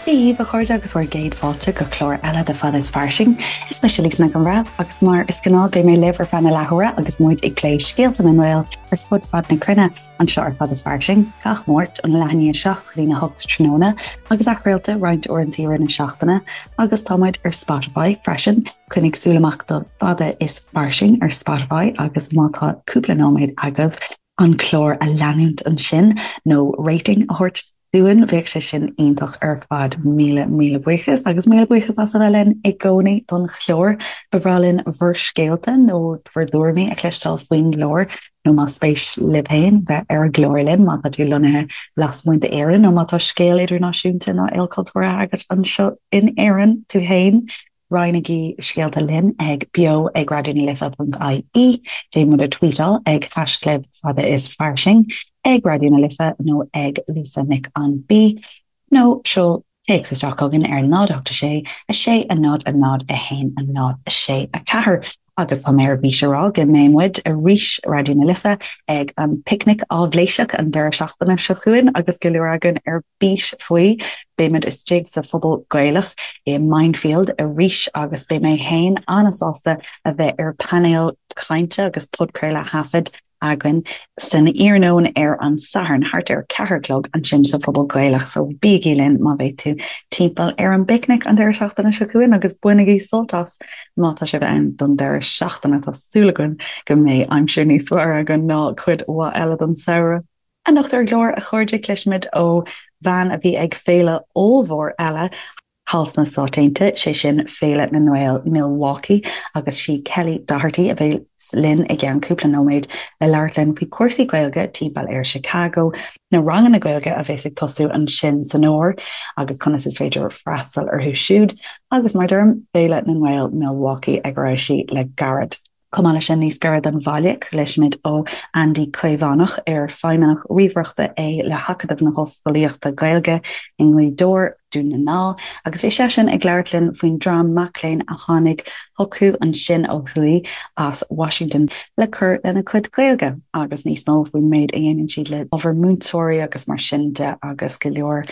Dia dhaoibh, a chairde, agus bhur gcéad fáilte go clár eile de Fada is Fairsing. Is mise Lisa Nic an Bhreithimh agus mar is gnáth beidh mé libh ar feadh na leathuaire agus muid ag plé scéalta na nGael ar fud fad na cruinne anseo ar Fada is Fairsing, gach Máirt ón leath i ndiaidh 7 go dtí a 8 tráthnóna agus athchraolta roinnt uaireanta i rith na seachtaine agus tá muid ar Spotify freisin. Coinnigh súil amach do Fada is Fairsing ar Spotify agus má tá cúpla nóiméad agaibh an clár a leanúint ansin nó rating a thabhairt dúinn, bheadh sé sin iontach ar fad. Míle, míle buíochas agus míle buíochas as a bheith linn i gcónaí don chlár. Ba bhreá linn bhur scéalta nó bhur dtuairimí a chloisteáil faoin gclár nó más spéis libh féin bheith ar an gclár linn má tá tú lonnaithe lasmuigh d'Éirinn nó má tá scéal idirnáisiúnta nó ilchultúrtha agat anseo in Éirinn tú féin. Roinnigí scéalta linn ag beo ag raidió na life ponc ie, déan muid a tweetáil ag haischlib fada is fairsing, ag Raidió na Life nó ag Lisa Nic an B, nó seol téacs isteach chugainn ar 0 8 6 6 0 0 1 0 6 4. Agus tá mé ar bís a rá go mbeidh muid arís, Raidió na Life, ag an bPicnic Áibhléiseach an deireadh seachtaine seo chugainn agus go leor againn ar bís faoi. Beidh muid istigh sa Phuball Gaelach i Mindfield arís agus beidh mé féin an-sásta a bheith ar painéal cainte agus podchraoladh a thaifead againn san iarnóin ar an Satharn thart ar 4 a chlog ansin sa Phuball Gaelach so bígí linn má bheidh tú timpeall ar an bpicnic an deireadh seachtaine seo chugainn agus bainigí sult as má tá sibh ann don deireadh seachtaine. Tá súil againn go mbeidh aimsir níos fearr againn ná cuid mhaith eile den samhradh. Anocht ar an gclár, a chairde, cloisfimid ó bhean a bhí ag féile ollmhór eile thall sna Stáit Aontaithe, sé sin Féile na nGael Milwaukee, agus sí Kelly Doherty a bheas linn i gceann cúpla nóiméad le labhairt linn faoi chúrsaí Gaeilge timpeall ar Chicago, na ranganna Gaeilge a bheas ag tosú ansin san fhómhar agus conas is féidir freastal orthu siúd, agus mar a deirim, Féile na nGael Milwaukee ag a raibh sí le gairid. Chomh maith leis sin, níos gaire don bhaile, cloisfimid ó Andy Caomhánach, ar feidhmeannach ríomhaireachta é le hAcadamh na hOllscolaíochta Gaeilge i nGaoth Dobhair, Dún na nGall, agus bhí seisean ag labhairt linn faoin dream mac léinn a tháinig chucu ansin ó thuaidh as Washington le cur lena gcuid Gaeilge agus níos mó faoin méid a dhéanann siad le ábhar múinteoirí agus mar sin de agus go leor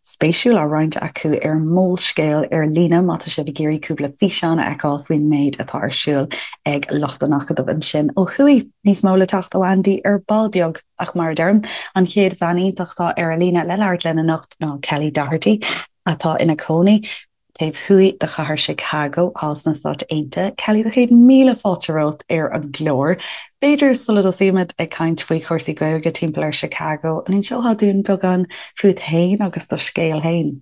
spéisiúil á roinnt acu ar Molscéal ar líne má tá sibh ag iarraidh cúpla físeán a fheiceáil faoin méid atá ar siúl ag lucht an Acadaimh ansin ó thuaidh. Níos mó le teacht ó Andy ar ball beag. Ach mar a deirim, an chéad bhean iontach atá ar an líne le labhairt linn anocht ná Kelly Doherty, atá ina cónaí taobh thuaidh de chathair Chicago, thall sna Stáit Aontaithe. Kelly, do chéad míle fáilte romhat ar an gclár. B'fhéidir sula dtosaímid ag caint faoi chúrsaí Gaeilge timpeall ar Chicago, an inseofá dúinn beagán fút féin agus do scéal féin?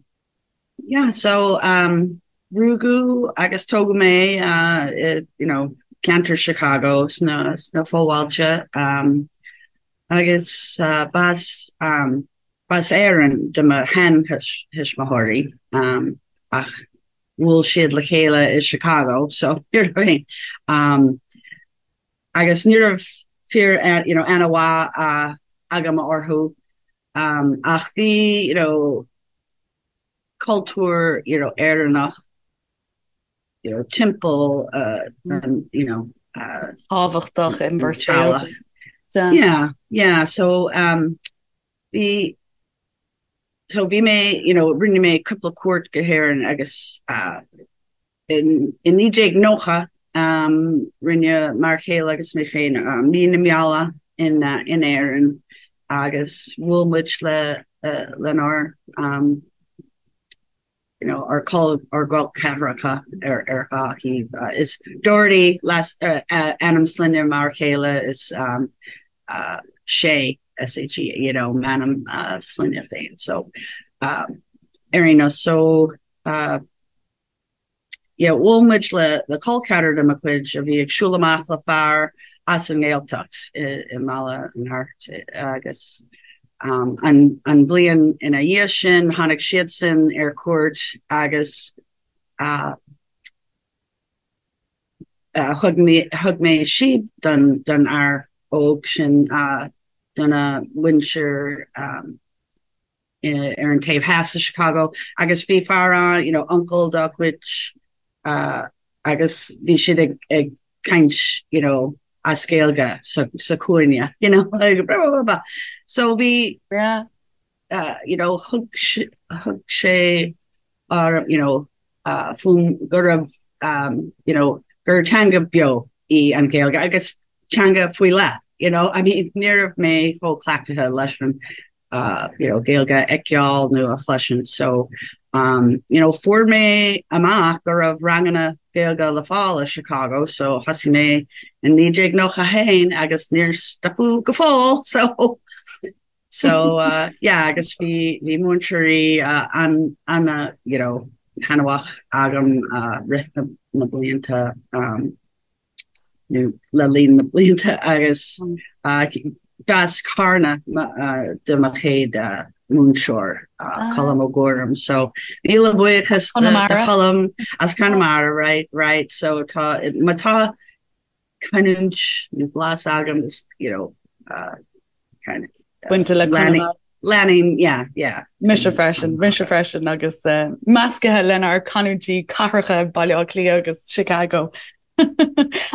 Yeah, so um, rugadh agus tógadh mé uh, i, you know, ceantar Chicago sna, sna fobhailte um, agus uh, b'as um, B'as Éirinn do mo sheantuismitheoirí ach bhuail siad le chéile i Chicago so you know what I mean um agus ní raibh fíor you know aithne mhaith agam orthu um ach bhí you know cultúr you know Éireannach you know timpeall uh, you know uh, tábhachtach in bhur saol. Yeah, yeah, so um Bhí, so bhí mé, you know, rinne mé cúpla cuairt go hÉirinn agus uh, in, in 1990 um, rinne m'fhear céile agus mé féin uh, mí na meala in, uh, in Éirinn agus bhuail muid le, uh, lenár um, you know, ár col ár gcol ceathracha ar ar dhá thaobh. Is Doherty leas ainm sloinne m'fhear chéile is um, uh, Shea S-H-E you know, m'ainm uh, sloinne féin. So um, ar aon nós so uh, yeah, bhuail muid le le col ceathrar de mo chuid a bhí ag siúl amach le fear as an nGaeltacht i, i mBaile an Hairt agus An bhliain ina dhiaidh sin, tháinig siadsan ar cuairt agus thug mé síob don fhear óg sin, dona mhuintir ar an taobh theas de Chicago agus bhí fear ann, you know, uncail dá chuid agus bhí siad ag ag caint, you know, as Gaeilge sa sa chúinne, you know, like blah, blah, blah. So bhí, uh, you know, thug thug sé. orm, you know, fúm go raibh, you know, gur teanga beo í an Ghaeilge agus teanga faoi leith, you know, I mean, ní raibh mé chomh cleachtaithe leis an, you know, Gaeilge a fheiceáil nó a chloisint so, um, you know, fuair mé amach go raibh ranganna Gaeilge le fáil i Chicago so thosaigh mé in 1991 agus níor stopadh go fóill so So uh, yeah, agus bhí bhí múinteoirí uh, an an uh, you know, thaitneamhach agam uh, rith na, na blianta um, nó le linn na blianta agus mm. uh, b'as Carna uh, do mo chéad uh, múinteoir uh, ah. Colm Ó Guairim. So míle buíochas do Cholm as Conamara, right, right. So tá má tá canúint nó blas agam is you know uh, kind of uh, Bainte le Conamara. Leanaim, yeah, yeah. Mise freisin, mise freisin agus uh, measctha lenár canúintí cathracha Baile Átha Cliath agus Chicago.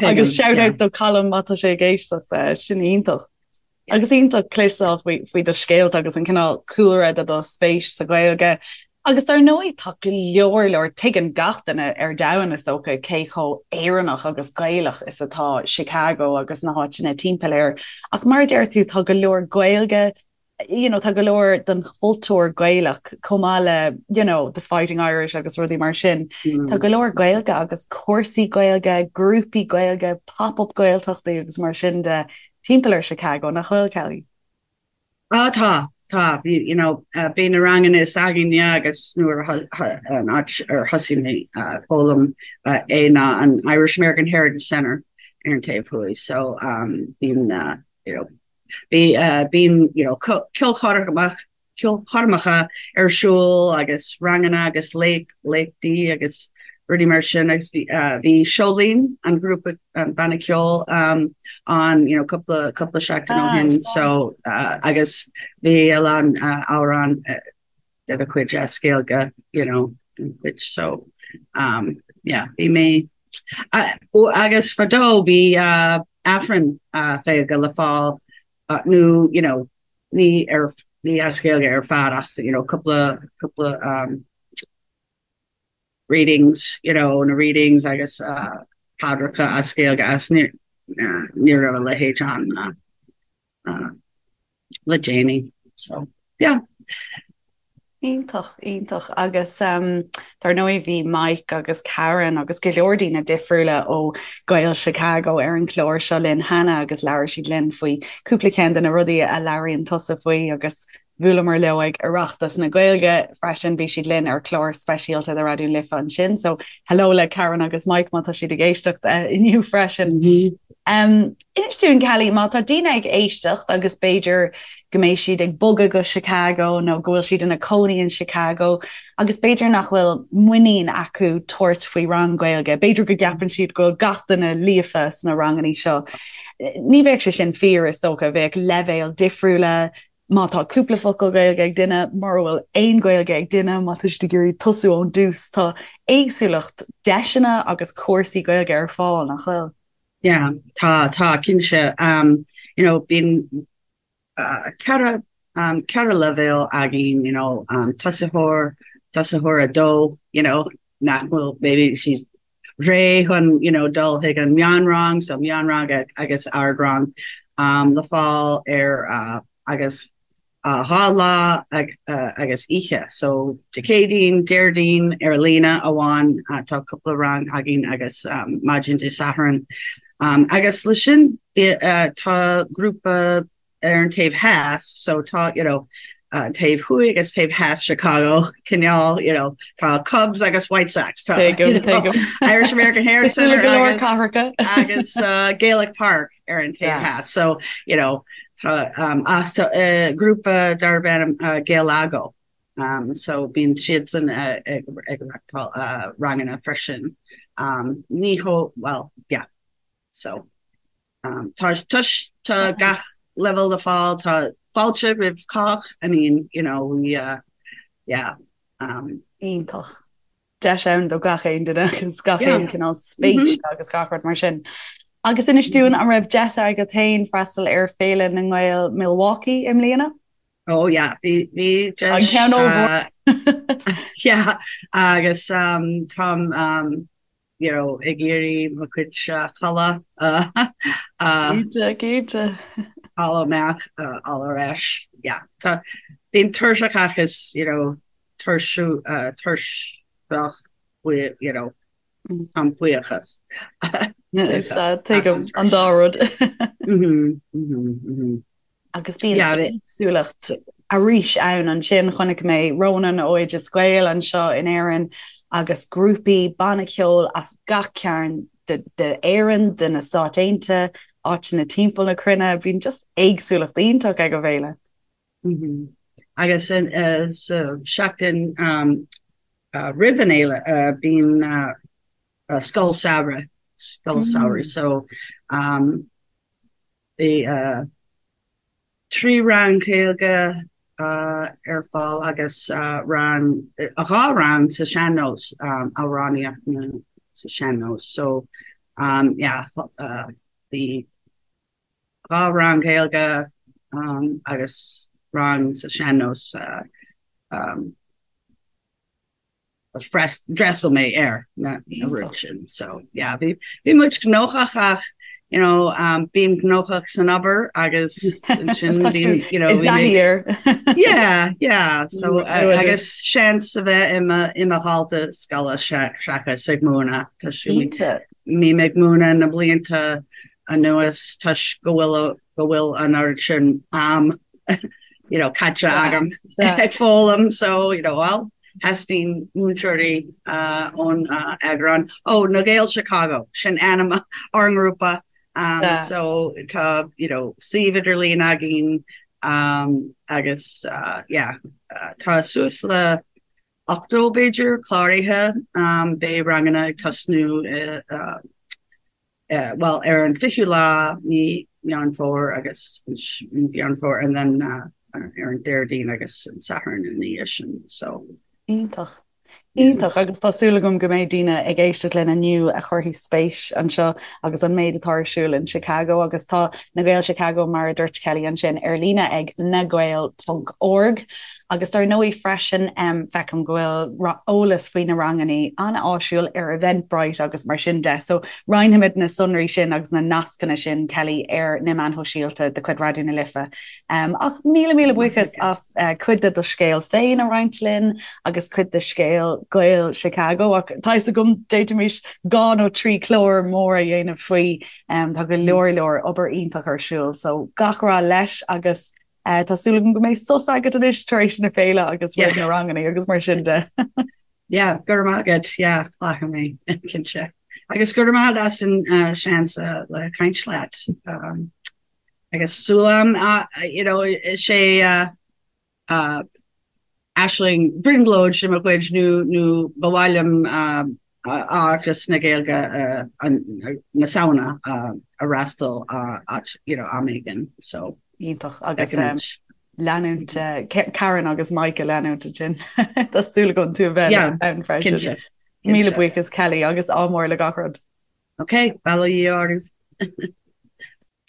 Agus shout out do Colm má tá sé ag éisteacht uh, sin iontach. Agus iontach cloisteáil faoi faoi do scéalta agus an cineál cúlra de do spéis sa Ghaeilge. Agus dar ndóigh tá go leor leor, tuigeann gach duine ar domhan is dócha cé chomh Éireannach agus Gaelach is atá Chicago agus na háiteanna timpeall air. Ach mar a deir tú tá go leor Gaeilge, you know, tá go leor den chultúr Gaelach chomh maith le, you know, the Fighting Irish agus rudaí mar sin. Tá go leor Gaeilge agus cúrsaí Gaeilge, grúpaí Gaeilge, pop-up Gaeltachtaí agus mar sin de timpeall ar Chicago, nach bhfuil, Kelly? Ah, tá, tá. Bhí, you know, bhí na ranganna s'againne agus nuair a, an áit ar thosaigh mé ag foghlaim é ná an Irish American Heritage Center ar an taobh thuaidh. So, um, bíonn, you know, bhí, bíonn, you know, ceolchoirmeacha, ceolchoirmeacha ar siúl agus ranganna agus léachtaí agus rudaí mar sin agus bhí bhí Seo Linn, an grúpa, an banna ceoil ann you know cúpla cúpla seachtain ó shin so agus bhí a lán amhrán de a chuid as Gaeilge you know which so um yeah bhí mé agus fadó bhí Aifreann Gaeilge le fáil nó you know ní ar ní as Gaeilge ar fad ach you know cúpla cúpla um, readings you know na readings agus uh, paidreacha as Gaeilge as ní uh, ní raibh a leithéid ann uh, uh, le déanaí so yeah. Iontach, iontach. Agus dar ndóigh bhí Mike agus Karen agus go leor daoine difriúla ó Gaeil Chicago ar an chlár seo linn cheana agus labhair siad linn faoi cúpla ceann de na rudaí a labhraíonn tusa faoi agus bhuaileamar leo ag Oireachtas na Gaeilge freisin, bhí siad linn ar chlár speisialta de Raidió na Life ansin. So hello le Karen agus Mike má tá siad ag éisteacht inniu freisin. Inis dúinn Kelly, má tá daoine ag éisteacht agus b'fhéidir go mbeidh siad ag bogadh go Chicago nó go bhfuil siad ina cónaí in Chicago agus b'fhéidir nach bhfuil muinín acu tabhairt faoi rang Gaeilge. B'fhéidir go gceapann siad go bhfuil gach duine líofa sna ranganna seo. Ní bheadh sé sin fíor is dócha, bheadh leibhéil difriúla, má tá cúpla focal Gaeilge ag duine, mura bhfuil aon Ghaeilge ag duine, má tá siad ag iarraidh tosú ón dtús, tá éagsúlacht deiseanna agus cúrsaí Gaeilge ar fáil, nach bhfuil? Yeah, tá, tá, cinnte. Um, you know, bíonn uh, ceithre, um, ceithre leibhéal againn, you know, um, tosaitheoir, tosaitheoir a dó, you know, nach bhfuil, maybe siad réidh chun, you know, dul chuig an meánrang, so meánrang agus ardrang, um, le fáil ar, uh, agus 2 lá agus oíche. So Dé Céadaoin, Déardaoin ar líne amháin, tá cúpla rang againn agus maidin Dé Sathairn. Agus le sin tá grúpa ar an taobh theas, so tá you know taobh thuaidh agus taobh theas Chicago, cineál you know tá Cubs agus White Sox, tá you know, Irish American Heritage Centre agus, agus uh, Gaelic Park. ar an taobh theas. So, you know, tá um, ach tá uh, grúpa darb ainm uh, Gaelago. Um, so bíonn siadsan uh, ag, ag reáchtáil uh, ranganna freisin. Um, ní ho, well, yeah. So um, tá, tá, tá gach level le fáil, tá fáilte roimh cách, I mean, you know, we, uh, yeah. Um, Iontach. deis ann do gach aon duine agus gach aon cineál spéis agus gach rud mar sin. Agus inis dúinn an raibh deis agat féin freastal ar Féile na nGael Milwaukee i mbliana? Oh yeah, bhí bhí deis. An ceann ollmhór. Yeah agus um, táim um, you know, ag iarraidh mo chuid codladh Cinnte, cinnte. fháil amach fháil ar ais. Yeah. Tá bím tuirseach agus you know, tuirsiú tuirseach you know, Táim buíochas. Tuigim an dá rud. Agus bíonn éagsúlacht arís ann ansin. Chonaic mé Ronan ó Oideas Gael anseo in Éirinn agus grúpaí banna ceoil as gach cearn d'Éirinn, de na Stáit Aontaithe, áiteanna timpeall na cruinne. Bíonn just éagsúlacht iontach ag an bhféile. Agus sa seachtain roimh an fhéile bíonn scoil samhraidh, scoil samhraidh so bhí 3 rang Gaeilge ar fáil agus rang, 2 rang sa sean-nós, amhránaíocht sa sean-nós so yeah bhí 2 rang Gaeilge agus rang sa sean-nós d'fhreastail mé ar na rud sin. So yeah, bhí bhí muid gnóthach ach you know, um, bím gnóthach san obair agus sin bím you know, bhí yeah, yeah. So uh, agus seans a bheith i mo i mo dhalta scoile seachas ag múineadh Tá bím ag múineadh na blianta anuas toisc go bhfuil go bhfuil an oiread sin am you know, caite agam ag foghlaim so you know, well, theastaíonn múinteoirí uh, ón uh, eagrán. Ó na Gaeil Chicago sin ainm ár ngrúpa um, yeah. so tá you know, suíomh idirlín againn um, agus uh, yeah, uh, tá suas le 80 b'fhéidir cláraithe um, beidh ranganna ag tosnú uh, bhuel, ar an 20ú lá mí Meán Fómhair agus Meán Fómhair and then ar an Déardaoin agus an Satharn ina dhiaidh sin so. Iontach. Iontach agus tá súil agam go mbeidh daoine ag éisteacht linn inniu a chuirfidh spéis anseo agus an méid atá ar siúl in Chicago agus tá Na Gaeil Chicago mar a dúirt Kelly ansin ar líne ag nagael ponc org Agus dar ndóigh freisin, feicim go bhfuil eolas faoi na ranganna an-áisiúil ar Eventbrite agus mar sin de. So roinnfimid na sonraí sin agus na nascanna sin, Kelly, ar na meáin shóisialta de chuid Raidió na Life. Ach míle míle buíochas as cuid de do scéal féin a roinnt linn agus cuid de scéal Gaeil Chicago. Ach tá fhios agam d'fhéadfaimis 2 nó 3 chlár mór a dhéanamh faoi. Tá go leor leor obair iontach ar siúl. So gach rath leis agus Tá súil agam go mbeidh sos agat anois tar éis na féile agus roimh na ranganna agus mar sin de. Yeah, go raibh maith agat, yeah, glacfaidh mé, cinnte. Agus go raibh maith agat as an uh, seans uh, le caint leat. Um, agus súil agam, uh, you know, is é uh, uh, aisling brionglóid de mo chuid nó nó ba mhaith liom um, Oireachtas na Gaeilge na Samhna a fhreastal you know, am éigin. So, Iontach agus leanúint Karen agus Mike a leanúint ansin. Tá súil agam tú a bheith ann freisin. Míle buíochas Kelly agus ádh mór le gach rud. Ok, bail ó Dhia oraibh.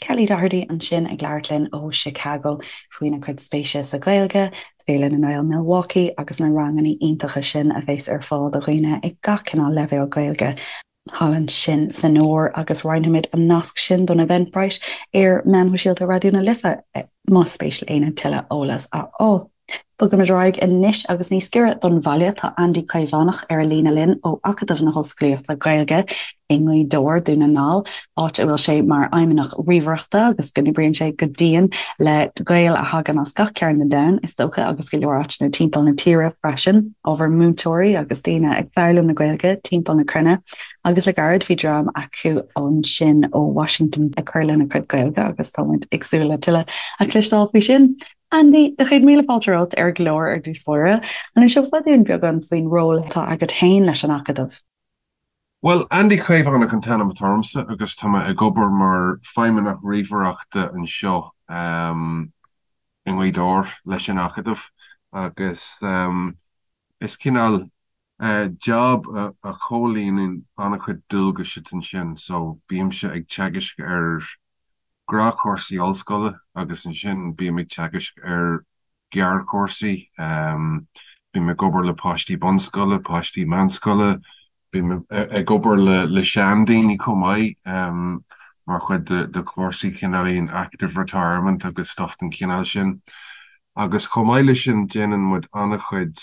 Kelly Doherty ansin ag labhairt linn ó Chicago faoina cuid spéise sa Ghaeilge, Féile na nGael Milwaukee agus na ranganna iontacha sin a bheas ar fáil do dhaoine ag gach cineál leibhéal Gaeilge thall ansin san Iúr agus roinnfimid an nasc sin don Eventbrite ar meáin shóisialta Raidió na Life más spéis le éinne tuilleadh eolas a fháil. Bogaimid ar aghaidh anois agus níos giorra don bhaile tá Andy Caomhánach ar an líne linn ó Acadamh na hOllscolaíochta Gaeilge i nGaoth Dobhair, Dún na nGall, áit a bhfuil sé mar Fheidhmeannach Ríomhaireachta agus go n-oibríonn sé go dian le Gaeil a thagann as gach cearn den domhan, is dócha, agus go leor áiteanna timpeall na tíre freisin, ábhar múinteoirí agus daoine ag foghlaim na Gaeilge timpeall na cruinne. Agus le gairid bhí dream acu ansin ó Washington ag cur lena gcuid Gaeilge agus tá muid ag súil le tuilleadh a chloisteáil faoi sin. Andy, do chéad míle fáilte romhat ar an gclár ar dtús báire. An inseofá dúinn beagán faoin ról atá agat féin leis an Acadamh? Bhuel, Andy Caomhánach an t-ainm atá ormsa agus tá mé ag obair mar Feidhmeannach Ríomhaireachta anseo i nGaoth Dobhair leis an Acadamh agus is cineál job a chomhlíonann an-chuid dualgais atá ansin so bímse ag teagaisc ar gnáthchúrsaí ollscoile agus ansin bím ag teagaisc ar ghearrchúrsaí. Bím ag obair le páistí bunscoile, páistí meánscoile, bím ag obair le seandaoine chomh maith mar chuid de chúrsaí cineáilín active retirement agus stuff den chineál sin. Agus chomh maith leis sin déanann muid an-chuid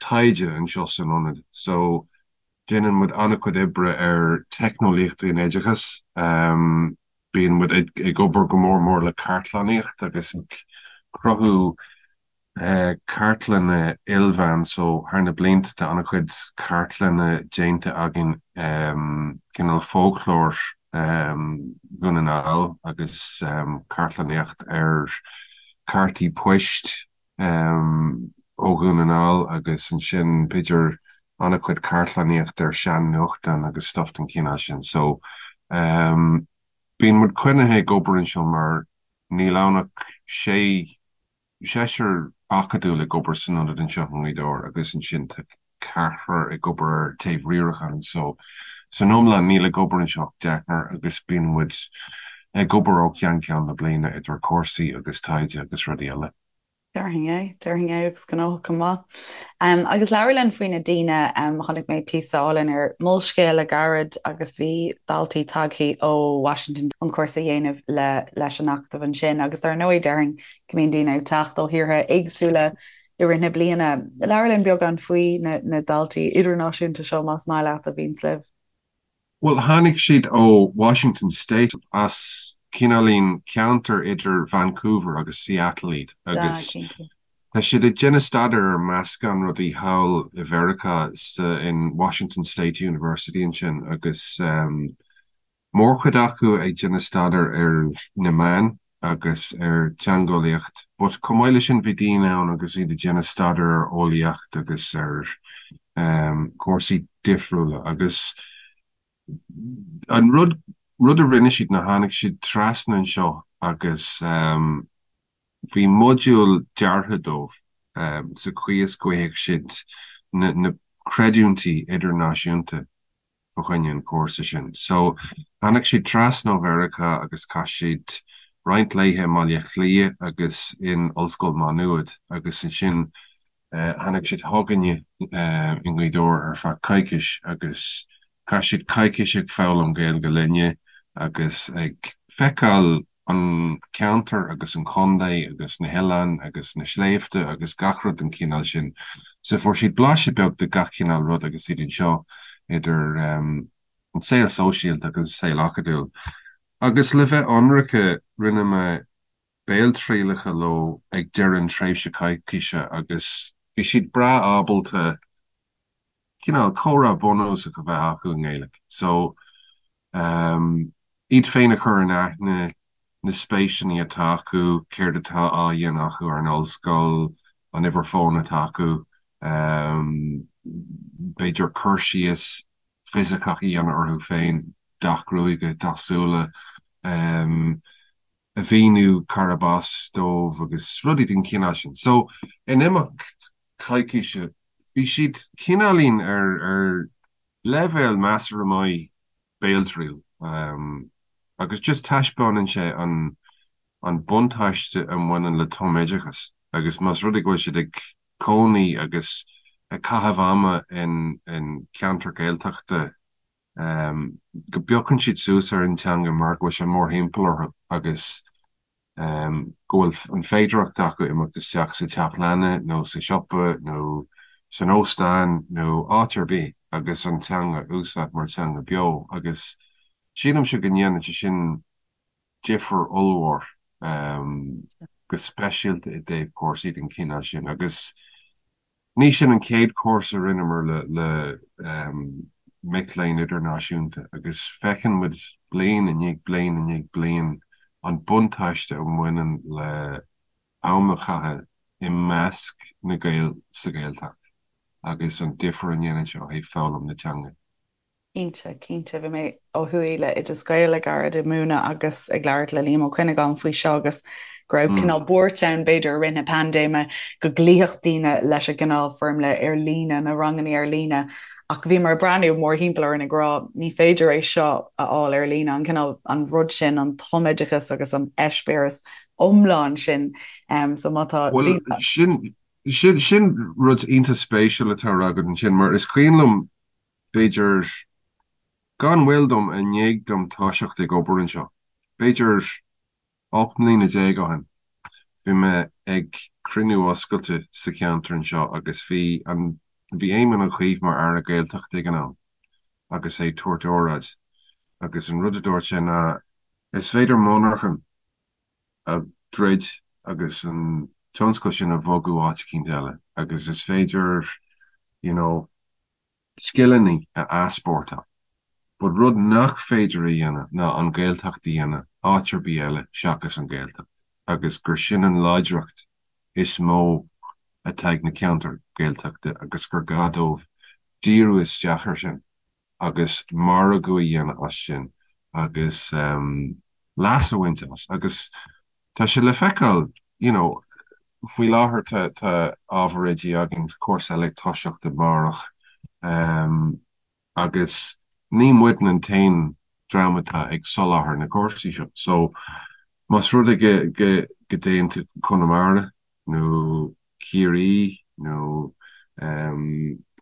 taighde anseo san ionad. So déanann muid an-chuid oibre ar teicneolaíochtaí in oideachas. Bíonn muid ag obair go mór mór le cartlannaíocht agus ag cruthú cartlanna ilmheán so thar na blianta tá an-chuid cartlanna déanta againn, cineál fóclóir Dhún na nGall agus cartlannaíocht ar cártaí poist ó Dhún na nGall agus ansin b'fhéidir an-chuid cartlannaíocht ar sean-nuachtáin agus stuff den chineál sin. So bíonn muid coinnithe ag obair anseo mar níl ann ach sé seisear acadúil ag obair san ionad anseo i nGaoth Dobhair agus ansin tá ceathrar ag obair ar taobh riaracháin so san iomlán níl ag obair anseo ach deichniúr agus bíonn muid ag obair ó cheann ceann na bliana idir cúrsaí agus taighde agus rudaí eile. Déarfainn é, déarfainn é agus gnóthach go maith. Agus labhair linn faoi na daoine, chonaic mé píosa álainn ar Molscéal le gairid agus bhí daltaí tagthaí ó Washington chun cúrsa a dhéanamh le leis an Acadamh ansin agus dar ndóigh déarfainn go mbíonn daoine ag teacht ó thíortha éagsúla i rith na bliana. Labhair linn beagán faoi na daltaí idirnáisiúnta seo más maith leat a bhíonns libh. Bhuel, tháinig siad ó Washington State, as cineáilín ceantar idir Vancouver agus Seattle iad agus tá siad ag déanamh staidéir ar meascán rudaí thall i Mheiriceá sa in Washington State University ansin agus mórchuid acu ag déanamh staidéir ar na meáin agus ar teangeolaíocht but chomh maith leis sin bhí daoine ann agus iad ag déanamh staidéar ar eolaíocht agus ar chúrsaí difriúla agus an rud rud a rinne siad ná tháinig siad trasna anseo agus bhí modúl deartha dóibh sa chaoi is go bhfaigheadh siad na na creidiúintí idirnáisiúnta fá choinne an chúrsa sin. So, tháinig siad trasna ó Mheiriceá agus chaith siad roinnt laetha i mBaile Átha Cliath agus in Ollscoil Má Nuad agus ansin tháinig siad chugainne i nGaoth Dobhair ar feadh coicís agus chaith siad coicís ag foghlaim Gaeilge linne agus ag feiceáil an ceantar agus an contae agus na hoileáin agus na sléibhte agus gach rud den chineál sin. So fuair siad blaiseadh beag de gach cineál rud agus iad anseo, idir an saol sóisialta agus an saol acadúil. Agus le bheith ionraice, rinne mé béaltrialacha leo ag deireadh an tréimhse coicíse agus bhí siad breá ábalta cineál comhrá bunúsach a bheith acu i nGaeilge. So, iad féin a chur in aithne, na spéiseanna atá acu, céard atá á dhéanamh acu ar an ollscoil, an uimhir fóin atá acu, b'fhéidir cur síos fisiceach a dhéanamh orthu féin, dath gruaige, dath súile, a mhíniú cárb as dóibh agus rudaí den chineál sin. So, in imeacht coicíse, bhí siad cineáilín ar ar leibhéal measartha maith béaltriail agus just taispeánann sé an an buntáiste a mbaineann le tumoideachas agus más rud é go bhfuil siad ag cónaí agus ag caitheamh ama in in ceantar Gaeltachta go bpiocann siad suas ar an teanga mar go bhfuil sé mórthimpeall orthu agus go bhfuil an féidearthacht acu imeacht isteach sa teach leanna nó sa siopa nó san óstán nó áit ar bith agus an teanga a úsáid mar teanga beo agus sílimse go ndéanann sé sin difear ollmhór, go speisialta i dtaobh cúrsaí den chineál sin agus Ní sin an chéad chúrsa a rinneamar le mic léinn idirnáisiúnta agus feiceann muid bliain i ndiaidh bliain i ndiaidh bliain an buntáiste a bhaineann le am a chaitheamh i measc na Gael sa Ghaeltacht agus an difear a ndéanann sé ó thaobh foghlaim na teanga. Cinnte, cinnte. Bhí mé ó thuaidh le Oideas Gael le gairid ag múineadh agus ag labhairt le Liam Ó Cuinneagáin faoi seo agus go raibh cineál buairt ann b'fhéidir i rith na paindéime go gcloífeadh daoine leis an gcineál foirmle ar líne, na ranganna ar líne ach bhíomar ag breathnú mórthimpeall orainn ag rá ní féidir é seo a fháil ar líne, an cineál, an rud sin, an tumoideachas agus an eispéireas iomlán sin. So má tá Bhuel, sin. Sin sin rud iontach spéisiúil atá á rá agat ansin mar is cuimhin liom b'fhéidir gan mhoill dom i ndiaidh dom toiseacht ag obair anseo, b'fhéidir 18 mbliana ó shin, bhí mé ag cruinniú oscailte sa cheantar anseo agus bhí an bhí Éamon Ó Cuív mar Aire Gaeltachta ag an am agus é ag tabhairt óráid agus an rud a dúirt sé ná is féidir monarchan a dhruid agus an tionscal sin a bhogadh áit eicínt eile agus is féidir you know scileanna a easpórtáil. But rud nach féidir a dhéanamh ná an Ghaeltacht a dhéanamh áit ar bith eile seachas an Ghaeltacht agus gur sin an láidreacht is mó atá ag na ceantair Ghaeltachta agus gur gá dóibh díriú isteach air sin. agus margadh a dhéanamh as sin agus leas a bhaint as agus tá sé le feiceáil you know faoi láthair tá tá ábhar oidí againn, cúrsa eile ag toiseacht amárach agus ní muidne an t-aon dream atá ag soláthar na cúrsaí seo so más rud é go go go dtéann tú Conamara nó Ciarraí nó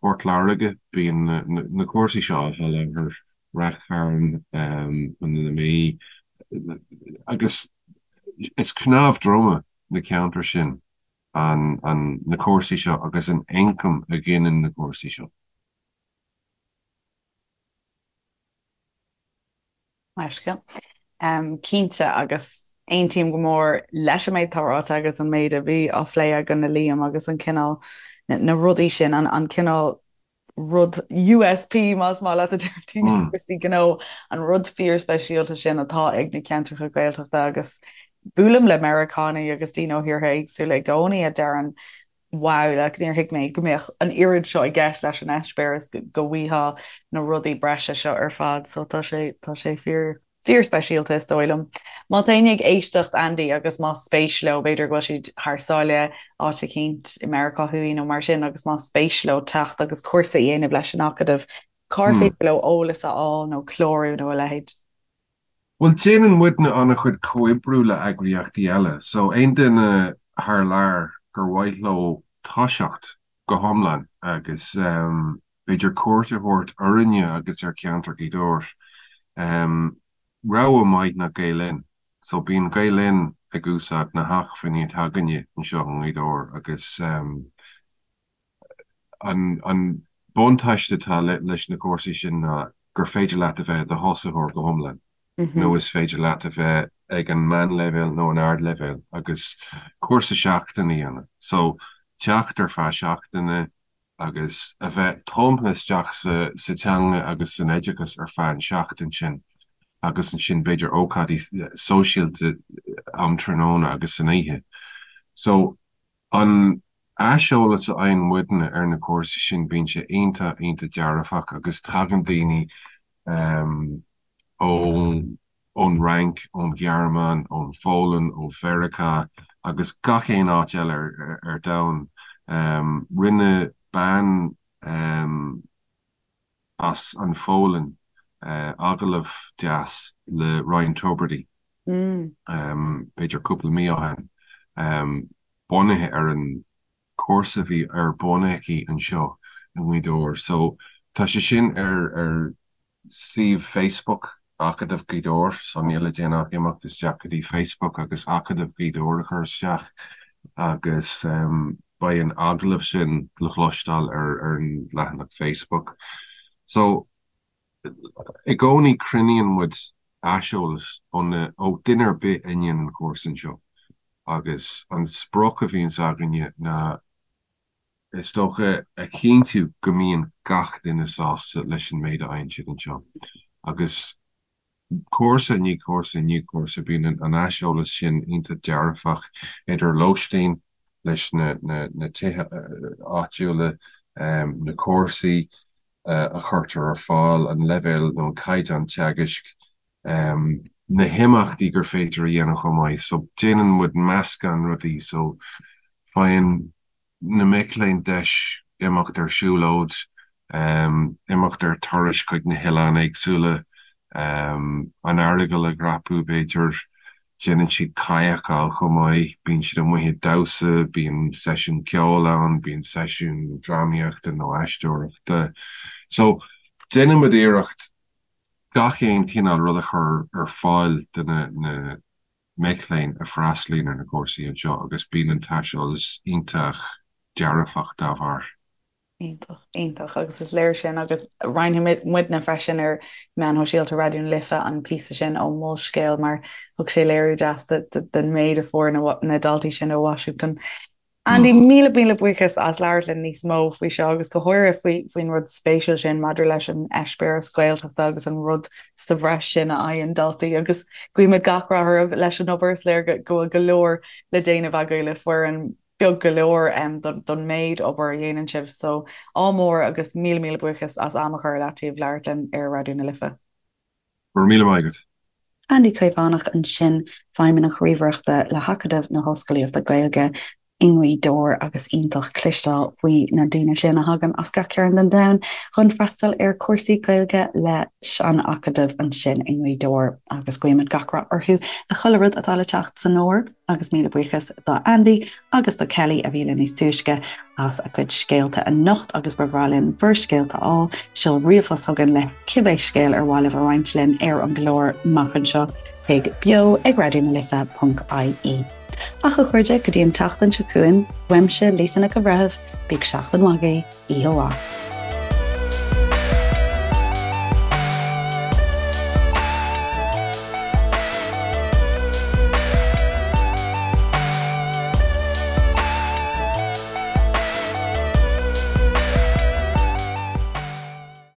Port Láirge, bíonn na cúrsaí seo á sholáthar, Rath Chairn, Contae na Mí, agus is cnámh droma na ceantair sin na cúrsaí seo agus an ioncam a ghineann na cúrsaí seo. Leithscéal. Cinnte, agus aontaím go mór leis an méid atá ráite agus an méid a bhí á phlé againn le Liam agus an cineál, na rudaí sin, an cineál rud USP, más maith leat a deir daoine i gcúrsaí gnó, an rud fíorspeisialta sin atá ag na ceantracha Gaeltachta agus buailim le Meiriceánaigh agus daoine ó thíortha éagsúla i gcónaí a deireann wow, like, níor thuig mé go mbeadh an oiread seo i gceist leis an eispéireas, go bhfaighfeá na rudaí breise seo ar fad, so tá sé, tá sé fíor, fíorspeisialta is dóigh liom. Má tá éinne ag éisteacht, Andy, agus más spéis leo, b'fhéidir go bhfuil siad thar sáile, áit eicínt i Meiriceá Thuaidh nó mar sin, agus más spéis leo teacht agus cúrsa a dhéanamh leis an Acadamh, cár féidir leo eolas a fháil nó clárú nó a leithéid? Bhuel, déanann muidne an-chuid comhoibriú le eagraíochtaí eile, so aon duine thar lear gur mhaith leo toiseacht go hiomlán agus b'fhéidir cuairt a thabhairt orainne agus ar cheantar Ghaoth Dobhair, rogha maith ná Gael Linn. So bíonn Gael Linn ag úsáid na hacmhainní atá againne anseo i nGaoth Dobhair agus. An buntáiste atá leis na cúrsaí sin ná gur féidir leat a bheith i do thosaitheoir go hiomlán nó is féidir leat a bheith ag an meánleibhéal nó an ardleibhéal agus cúrsa seachtaine a dhéanamh. So, teacht ar feadh seachtaine agus a bheith tumtha isteach sa teanga agus san oideachas ar feadh an seachtain sin agus ansin b'fhéidir ócáidí sóisialta um tráthnóna agus san oíche. So, An aiseolas a fhaigheann muidne ar na cúrsaí sin, bíonn sé iontach, iontach dearfach agus tagann daoine ón Fhrainc, ón Ghearmáin, ón Pholainn, ó Mheiriceá agus gach aon áit eile ar domhan. Rinne bean as an Pholainn agallamh deas le Ryan Tubridy, b'fhéidir cúpla mí ó shin, bunaithe ar an chúrsa a bhí ar bun aici anseo i nGaoth Dobhair. So tá sé sin ar ar suíomh Facebook Acadamh Ghaoth Dobhair, so níl le déanamh ach imeacht isteach go dtí Facebook agus Acadamh Ghaoth Dobhair a chur isteach agus beidh an agallamh sin le cloisteáil ar an leathanach Facebook. So i gcónaí cruinníonn muid aiseolas ó na, ó duine ar bith a ndéanann an cúrsa anseo agus an sprioc a bhíonns againne ná is dócha a chinntiú go mbíonn gach duine sásta leis an méid a fhaigheann siad anseo agus cúrsa i ndiaidh cúrsa i ndiaidh cúrsa bíonn an aiseolas sin iontach dearfach idir lóistín leis na tithe áitiúla, na cúrsaí a chuirtear ar fáil, an leibhéal nó an caighdeán teagaisc, na himeachtaí gur féidir a dhéanamh chomh maith. So déanann muid meascán rudaí so faigheann na mic léinn deis imeacht ar siúlóid, imeacht ar turais chuig na hoileáin éagsúla, an Earagail a dhreapadh, b'fhéidir. Déanann siad kayakáil chomh maith, bíonn siad amuigh ag damhsa, bíonn seisiún ceoil ann, bíonn seisiún drámaíochta nó aisteoireachta. So, déanann muid iarracht gach aon chineál rud a chur ar fáil do na mic léinn a freastalaíonn ar na cúrsaí anseo agus bíonn an t-aiseolas iontach dearfach dá bharr. Iontach, iontach agus is léir sin agus roinnfidh muidne freisin ar meáin shóisialta Raidió na Life an píosa sin ó Molscéal mar thug sé léiriú deas den méid a fuair na daltaí sin ó Washington. Andy, míle míle buíochas as labhairt linn níos mó faoi seo agus go háirithe faoi faoin rud spéisiúil sin maidir leis an eispéireas Gaeltachta agus an rud sa bhreis sin a fhaigheann daltaí agus guímid gach rath oraibh leis an obair. Is léir go bhfuil go leor le déanamh agaibh le foireann beag go leor don méid obair a dhéanann sibh. So, ádh mór agus míle míle buíochas as am a chur ar leataobh labhairt linn ar Raidió na Life. Go raibh míle maith agat. Andy Caomhánach ansin, Feidhmeannach Ríomhaireachta le hAcadamh na hOllscolaíochta Gaeilge i nGaoth Dobhair agus iontach cloisteáil faoi na daoine sin a thagann as gach cearn den domhan chun freastal ar chúrsaí Gaeilge leis an Acadamh ansin i nGaoth Dobhair agus guímid gach rath orthu le chuile rud atá le teacht san fhómhar. Agus míle buíochas do Andy agus do Kelly a bhí linn níos túisce as a gcuid scéalta anocht agus ba bhreá linn bhur scéalta a fháil. Seol ríomhphost chugainn le cibé scéal ar mhaith libh a roinnt linn ar an gclár amach anseo chuig beo ag raidionalife.ie. Ach a chairde, go dtí an tseachtain seo chugainn, uaimse Lisa Nic an Bhreithimh, bíodh seachtain mhaith agaibh, oíche mhaith.